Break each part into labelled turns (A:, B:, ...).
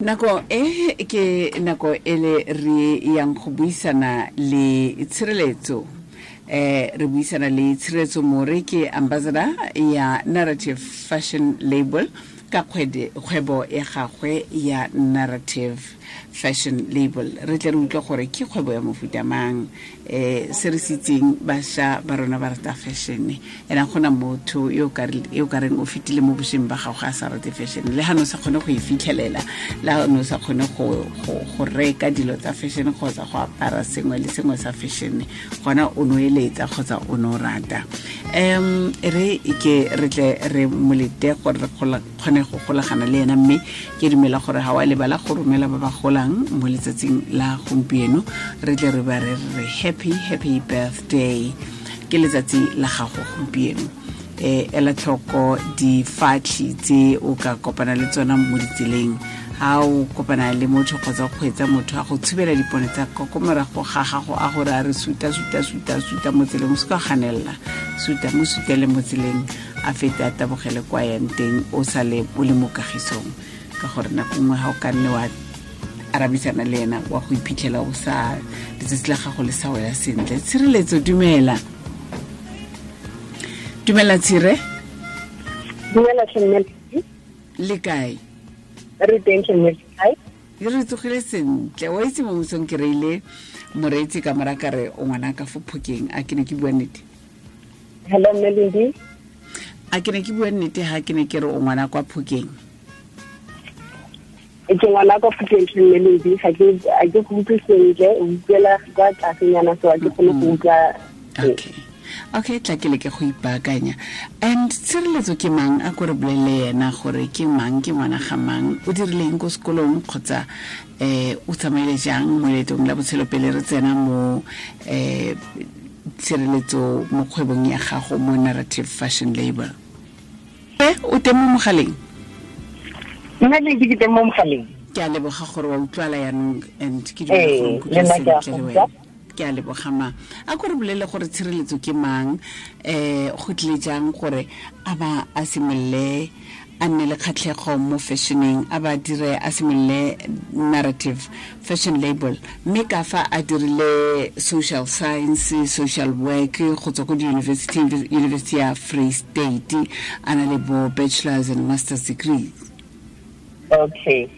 A: Nako e ke nako e le re yang go buisana le Tshireletso. Re buisana le Tshireletso More, ke ambassador ya Narrative Fashion Label, ka kgwebo ya gagwe ya Narrative Fashion Label. Re tle re utlwe gore ke kgwebo ya mofuta mang. Se re se itseng, bašwa ba rona ba rata fashion, ena gona motho yo ka reng o fetile mo bošweng ba gago a sa rate fashion, le ga ne o sa kgone go e fitlhelela, le ga ne o sa kgone go reka dilo tsa fashion kgotsa go apara sengwe le sengwe sa fashion, gona o no eletsa kgotsa o no rata. Re ke re tle re molete gore re kgone go golagana le ena, mme ke dumela gore ga wa lebala go romela ba ba golang mo letsatsing la gompieno. Re tle re ba re re happy, happy birthday, ke letsatsi la gago gompieno. Ela tlhoko difatlhi tse o ka kopana le tsona mo ditseleng. Ha o kopana le motho kgotsa o kgweetsa, motho a go tshubela dipone tsa ko morago ga gago, a gore a re suta, suta, suta, suta mo tseleng, o se ka ganelela, suta mo, sutele mo tseleng, a fete a tabogele kwa yang teng, o sale o le mo kagisong. Ka gore nako nngwe ga o ka nne wa arabisana le ena, wa go iphitlhela o sa letsatsi la gago le sa wela sentle. Tshireletso, dumela. Dumela, Tshire.
B: Dumela.
A: Le kae?
B: Re teng.
A: Re tsogile sentle. Wa itse, mo mosong ke reile moreetsi ka mora ka re o ngwana ka fo Phokeng. A ke ne ke bua nnete?
B: Hello, Melody.
A: A ke ne ke bua nnete ha ke ne ke re o ngwana kwa Phokeng?
B: Ke ngwana kwa Phokeng, Melody. Ga ke go utlwe sentle, o utlwela kwa tlasenyana, so a ke kgone go utlwa.
A: Okay, tla ke leke go ipaakanya. And Tshireletso ke mang? A ko re bolele ena gore ke mang, ke ngwana ga mang, o dirileng ko sekolong, kgotsa o tsamaile jang mo leetong la botshelo, pele re tsena mo Tshireletso mo kgwebong ya gago mo Narrative Fashion Label. O teng mo mogaleng?
B: Nna le ke teng mo mogaleng.
A: Ke a leboga gore wa utlwala yaanong, and ke dumela gore nkutlwa sentle le wena. Ke a leboga. Ma a ko re bolele gore Tshireletso ke mang, go tlile jang gore a ba a simolole a nne le kgatlhego mo fashioneng, a ba dire a simolole Narrative Fashion Label, mme ka fa a dirile social science, social work go tswa ko di-university, University ya Free State, a na le bo bachelors and masters degrees.
B: Okay,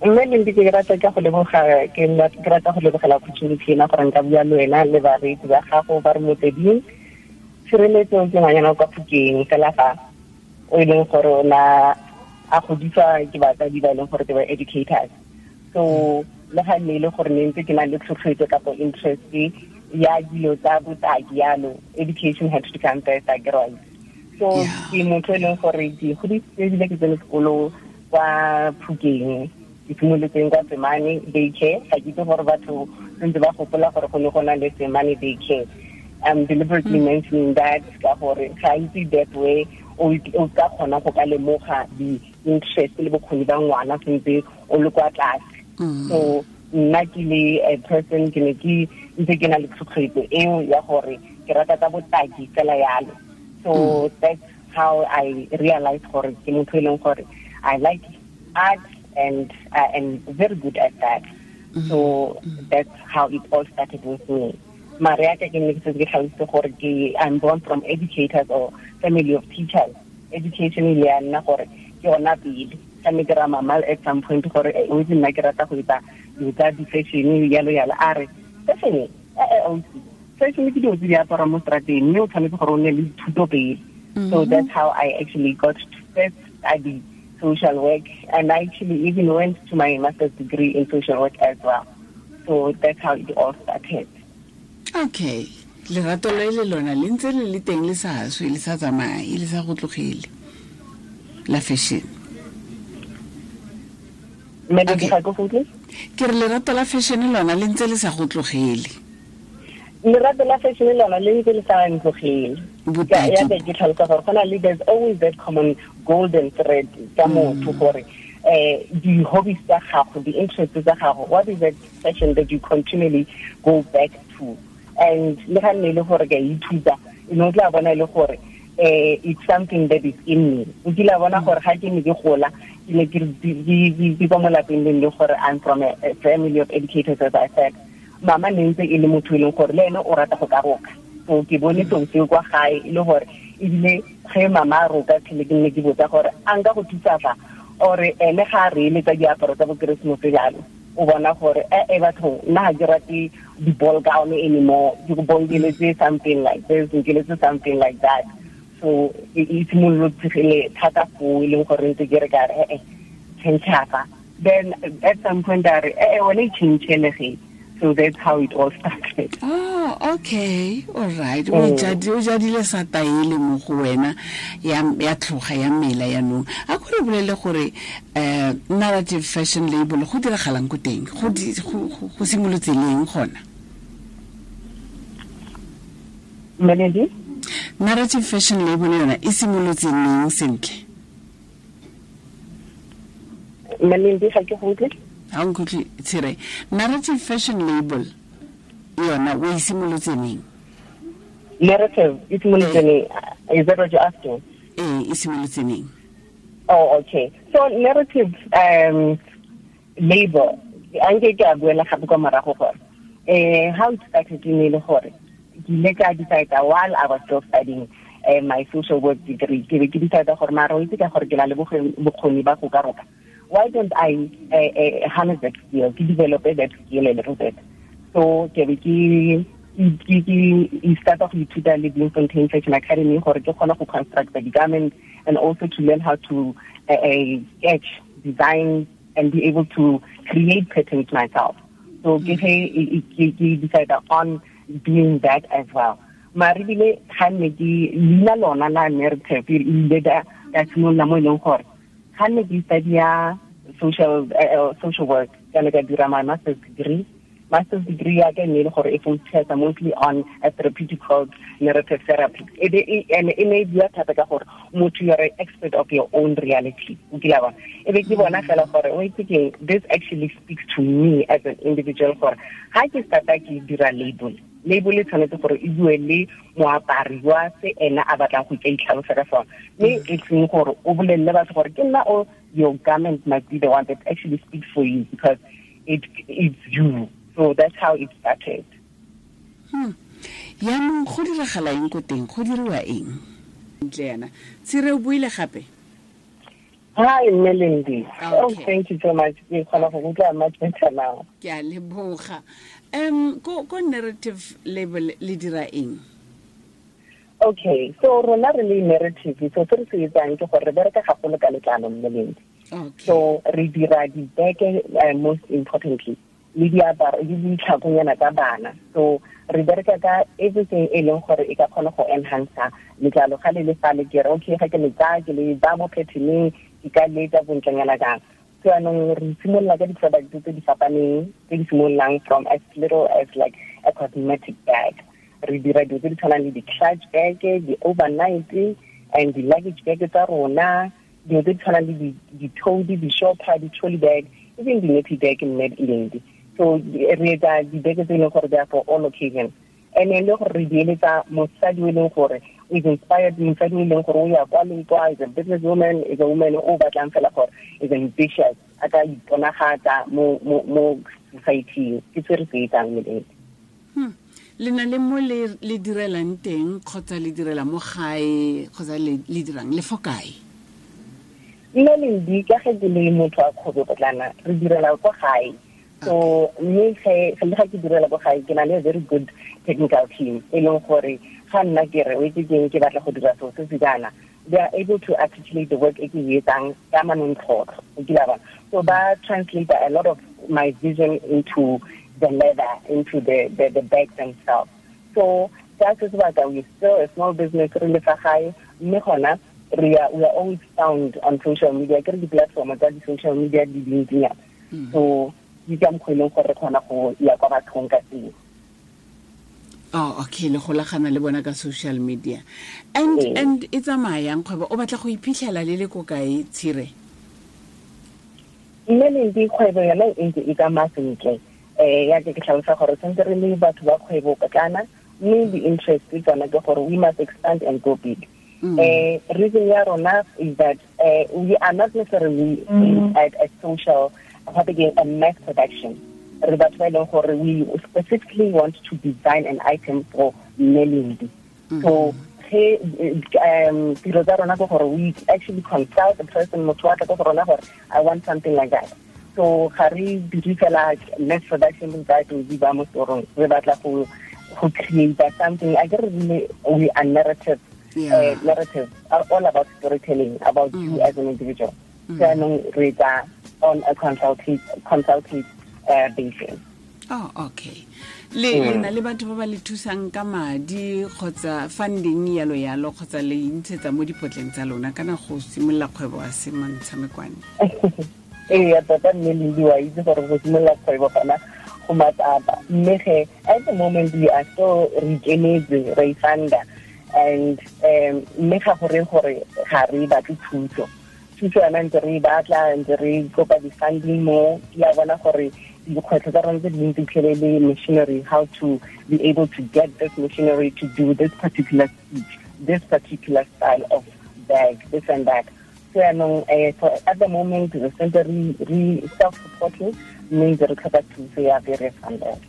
B: mme Lendi, ke rata ka go leboga, ke rata go lebogela opportunity ena gore nka bua le wena le bareetsi ba gago ba re Motsweding. Tshireletso ke ngwanyana kwa Phokeng fela, fa o e leng gore o na a godiswa ke batsadi ba e leng gore ke ba educators. So le ga nne e le gore ne ntse ke na le tlhotlhoetso kapo interest ya dilo tsa botaki yalo, education had to come first, a ke right? So ke motho e leng gore ke godisitse ebile ke tsene sekolo kwa Phokeng. Ke simolotseng kwa Semane Daycare. Ga ke itse gore batho sentse ba gopola gore go ne go na le Semane Daycare. I'm deliberately mentioning that ka gore gantsi that way o ka kgona go ka lemoga di-interest le bokgoni ba ngwana sentse o le kwa tlase. So nna ke le a person, ke ne ke ntse ke na le tlhotlhoetso eo ya gore ke rata tsa botaki fela yalo. So that's how I realized gore ke motho e leng gore I like art and I am very good at that. So that's how it all started with me. Mare ya ka ke ne ke setse ke tlhalositse gore ke I'm born from educators or family of teachers. Education ile ya nna gore ke yona pele. Ka ne ke ra mama at some point gore o itse, nna ke rata go etsa dilo tsa di-fashion yalo yalo. A re, "Fashion, ausi, fashion ke dilo tse di aparang mo strateng, mme o tshwanetse gore o nne le dithuto pele." So that's how I actually got to first study social work, and I actually even went to my master's degree in social work as well. So that's how it all started.
A: Okay, lerato le le lona le ntse le le teng, le sa swe, le sa tsamaye, le sa go tlogele, la fashion.
B: Okay.
A: Ke re lerato la fashion lona le ntse le sa go tlogele.
B: Lerato la fashion lona le ntse le sa ntlogele. Ya be ke tlhalosa gore go na le, there's always that common golden thread tsa motho gore di-hobbies tsa gago, di-interests tsa gago, what is that passion that you continually go back to? And le ga nne e le gore ke a ithuta, e ne o tla bona e le gore It's something that is in me. O kile bona gore ga ke ne ke gola, ke ne ke ke mo lapeng le le gore I'm from a family of educators, as I said. Mama ne ntse e le motho e leng gore le ene o rata go ka roka. So ke bone seo seo kwa gae e le gore ebile ge mama a roka tlhele ke nne ke botsa gore a nka go thusa fa, or ene ga a re eletsa diaparo tsa bo Keresemose jalo, o bona gore e batho nna ga ke rate di-ball gown anymore, ke go bonkeletse something like this, nkeletse something like that. So e simolotse thata foo, e leng gore ntse ke re ka re change fa. Then at some point a re wena e change. So that's how it all started.
A: Oh, okay. All right. O jadile sa taele mo go wena ya tlhoga ya mela ya nong. A go re bolele gore Narrative Fashion Label go diragalang ko teng? Go simolotse leng gona?
B: Melody?
A: Narrative Fashion Label yona e simolotse leng sentle?
B: Melody, ga ke go utlwe.
A: Ha nkutlwe Tshire. Narrative Fashion Label yona o e simolotse neng?
B: Narrative e simolotse neng? Is that what you're asking?
A: E simolotse neng?
B: Oh, okay. So narrative label, anke ke a buela gape kwa morago gore how it started ne le gore ke ile ka decide while I was still studying my social work degree, ke be ke decide gore mara o itse ka gore ke na le bokgoni ba go ka roka. Why don't I harness that skill, to develop that skill a little bit? So ke be ke start off with the Bloemfontein Fashion Academy gore ke kgone go construct the garment and also to learn how to sketch, design, and be able to create patterns myself. So ke decide on doing that as well. Mare ebile ga nne ke leina lona la narrative ile ka simolola mo e leng gore ga nne ke study social work, ka ne ka dira my master's degree. Master's degree ya ka ne le gore e focus mostly on a therapeutic called narrative therapy. E ne e bua thata ka gore motho you are an expert of your own reality. O kile wa e be ke bona fela gore o itse keng, this actually speaks to me as an individual gore ga ke starta ke dira label e tshwanetse gore e bue le moapari wa se ena a batlang go itlhalosa ka sona, mme e seng gore o bolelele batho gore ke nna o, your garment might be the one that actually speaks for you because it's you. So that's how it started.
A: Yaanong go diragala eng ko teng? Go diriwa eng? Ntle yana. Tshire o buile gape?
B: Hi, Melindy. Okay. Oh, thank you so much. Ke kgona go utlwa much better now.
A: Ke a leboga. Ko narrative label le dira eng?
B: Okay, so rona re le narrative, so se re se etsang ke gore re bereka gagolo ka letlalo, Melindy.
A: Okay.
B: So re dira dibeke, most importantly, le diaparo le ditlhakonyana tsa bana. So re bereka ka everything e leng gore e ka kgona go enhance letlalo ga le le fa le ke re okay ga ke le tsaya ke le ba mo patterneng ke ka le etsa bontlenyana jang. So anong re simolola ka di-product tse di fapaneng tse di simololang from as little as like a cosmetic bag. Re dira dilo tse di tshwanang le di-clutch bag, di-overnight and di-luggage bag tsa rona, dilo tse di tshwanang le di-toady, di-shopper, di-trolley bag, even di-nappy bag mme Lendi. So re etsa dibeke tse e leng gore they are for all occasions. And then le gore re di eletsa mosadi o e leng gore is inspired, mosadi o e leng gore o ya kwa le kwa, is a business woman, is a woman o batlang fela gore is ambitious, a ka iponagatsa mo society. Ke se re se etsang Melody.
A: Le na le mo le direlang teng kgotsa le direla mo gae kgotsa le dirang le fo kae?
B: Melody, ka ge ke le motho wa kgwebo potlana, re direla kwa gae. So mme ge le ga ke direla ko gae ke na le a very good technical team e leng gore ga nna ke re o itse keng ke batla go dira seo se se jaana, they are able to articulate the work e ke e etsang ka manontlhotlho. O kile wa bona? So ba translate a lot of my vision into the leather, into the bags themselves. So ka se sebaka we still a small business re le fa gae, mme gona we are always found on social media. Ke re di-platform tsa di-social media di dintsinyana. So di ka mokgwa e leng gore re kgona go ya kwa bathong ka teng.
A: Oh, okay, le golagana le bona ka social media. And e tsamayang kgwebo, o batla go iphitlhela le le ko kae, Tshire?
B: Mme kgwebo yona e ntse e tsamaya sentle. Ya ke tlhalosa gore tshwanetse re le batho ba kgwebo potlana, mme di-interest tsona ke gore we must expand and go big. Reason ya rona is that we are not necessarily at a social, a mass production. Re batho ba e leng gore we specifically want to design an item for Melindi. So ge tiro tsa rona ke gore we actually consult the person, motho wa tla ko go rona gore I want something like that. So ga re dire fela mass production tsa di ba mo storong, re batla go create something. I get really, we are narrative. Narrative are all about storytelling about you as an individual. So re tsa on a consultative basis.
A: Oh, okay. Le na le batho ba ba le thusang ka madi kgotsa funding yalo yalo kgotsa le intshetsa mo dipotleng tsa lona kana go simolola kgwebo a se mantshamekwane?
B: Ee, tota mme le wa itse gore go simolola kgwebo gona go matsapa. Mme ge at the moment we are still re ikemetse, re funder, and mme ga gore gore ga re batle thuso. Thuso yona ntse re batla, ntse re kopa di-funding mo, ke a bona gore dikgwetlho tsa rona tse dintsi tlhele le machinery, how to be able to get this machinery to do this particular stitch, this particular style of bag, this and that. So yaanong, so at the moment re sentse re self-supporting, mme ntse re tlhoka thuso ya various funders.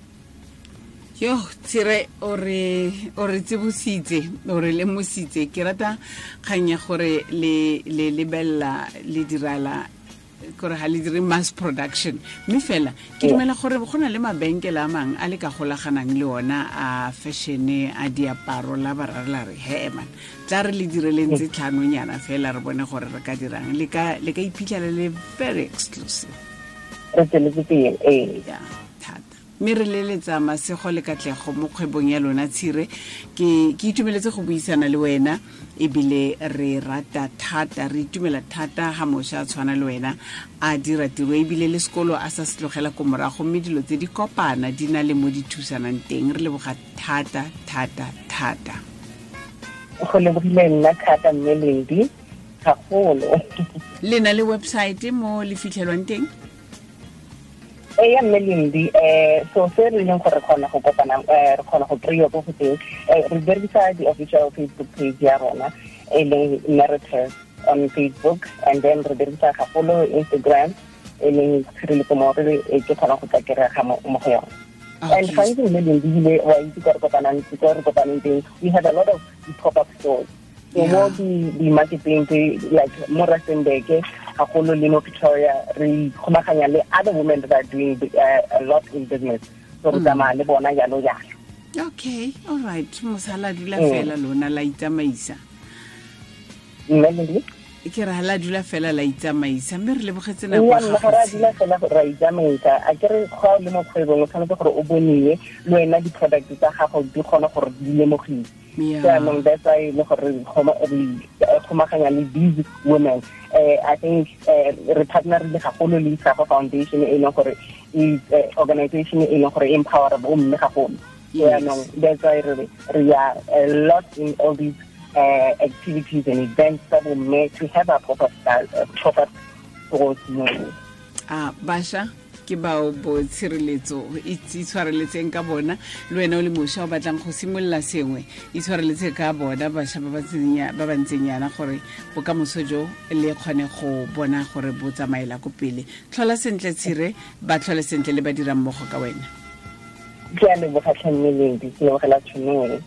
A: Yo, Tshire, o re tsebositse, o re lemositse. Ke rata kgang ya gore le lebella le dirala gore ga le dire mass production, mme fela ke dumela gore go na le mabenkele a mangwe a le ka golaganang le ona a fashion-e a diaparo la ba ra re he man, tla re le direleng tse tlhanonyana fela re bone gore re ka dirang. Le ka iphitlhela le very exclusive.
B: Re tsweletse pele, ee.
A: Yeah, thata. Mme re leletsa masego le katlego mo kgwebong ya lona, Tshire. Ke itumeletse go buisana le wena, ebile re rata thata, re itumela thata ga mošwa a tshwana le wena a dira tiro, ebile le sekolo a sa se tlogela ko morago, mme dilo tse di kopana di na le mo di thusanang teng. Re leboga thata thata thata.
B: Go lebogile nna thata mme Lendi, gagolo.
A: Le na le website mo le fitlhelwang teng?
B: Ee, mme Lendi, so se re leng gore re kgona go kopana, re kgona go kry-iwa ko go teng, re berekisa di-official Facebook page ya rona e leng Narrative on Facebook, and then re berekisa gagolo Instagram e leng Tshireletso More, e ke kgona go tla kry-a mo go yone. And gantsi mme Lendi ebile wa itse ko re kopanang teng, we have a lot of pop-up stores. So mo di-marketing tse like mo Rustenburg gagolo le mo Pretoria, re kgomaganya le other women that are doing a lot in business. So re tsamaya le bona jalo jalo.
A: Okay, all right. Mosala dula fela lona la itsamaisa.
B: Mme
A: ke re la dula fela la itsamaisa, mme re lebogetse nako ya gago.
B: Ga re dula fela ra itsamaisa. A ke re ga o le mo kgwebong o tshwanetse gore o boniwe le wena di-product tsa gago di kgone gore di lemogiwe. Jaanong that's why le gore re kgomaganya le these women. I think re partnerile gagolo le Isago Foundation e leng gore is organization e leng gore empower bomme gagolo. Jaanong that's why re are a lot in all these activities and events tsa bomme to have a proper style, proper stores mo.
A: Basha ke bao bo Tshireletso, itshwareletseng ka bona. Le wena o le mošwa o batlang go simolola sengwe, itshwareletse ka bona bašwa ba ba ntseng yana gore bokamoso jo le kgone go bona gore bo tsamaela ko pele. Tlhola sentle Tshire, ba tlhole sentle le ba dirang mmogo ka wena.
B: Ke a leboga tlhe mme Lendi, ke lebogela tšhono.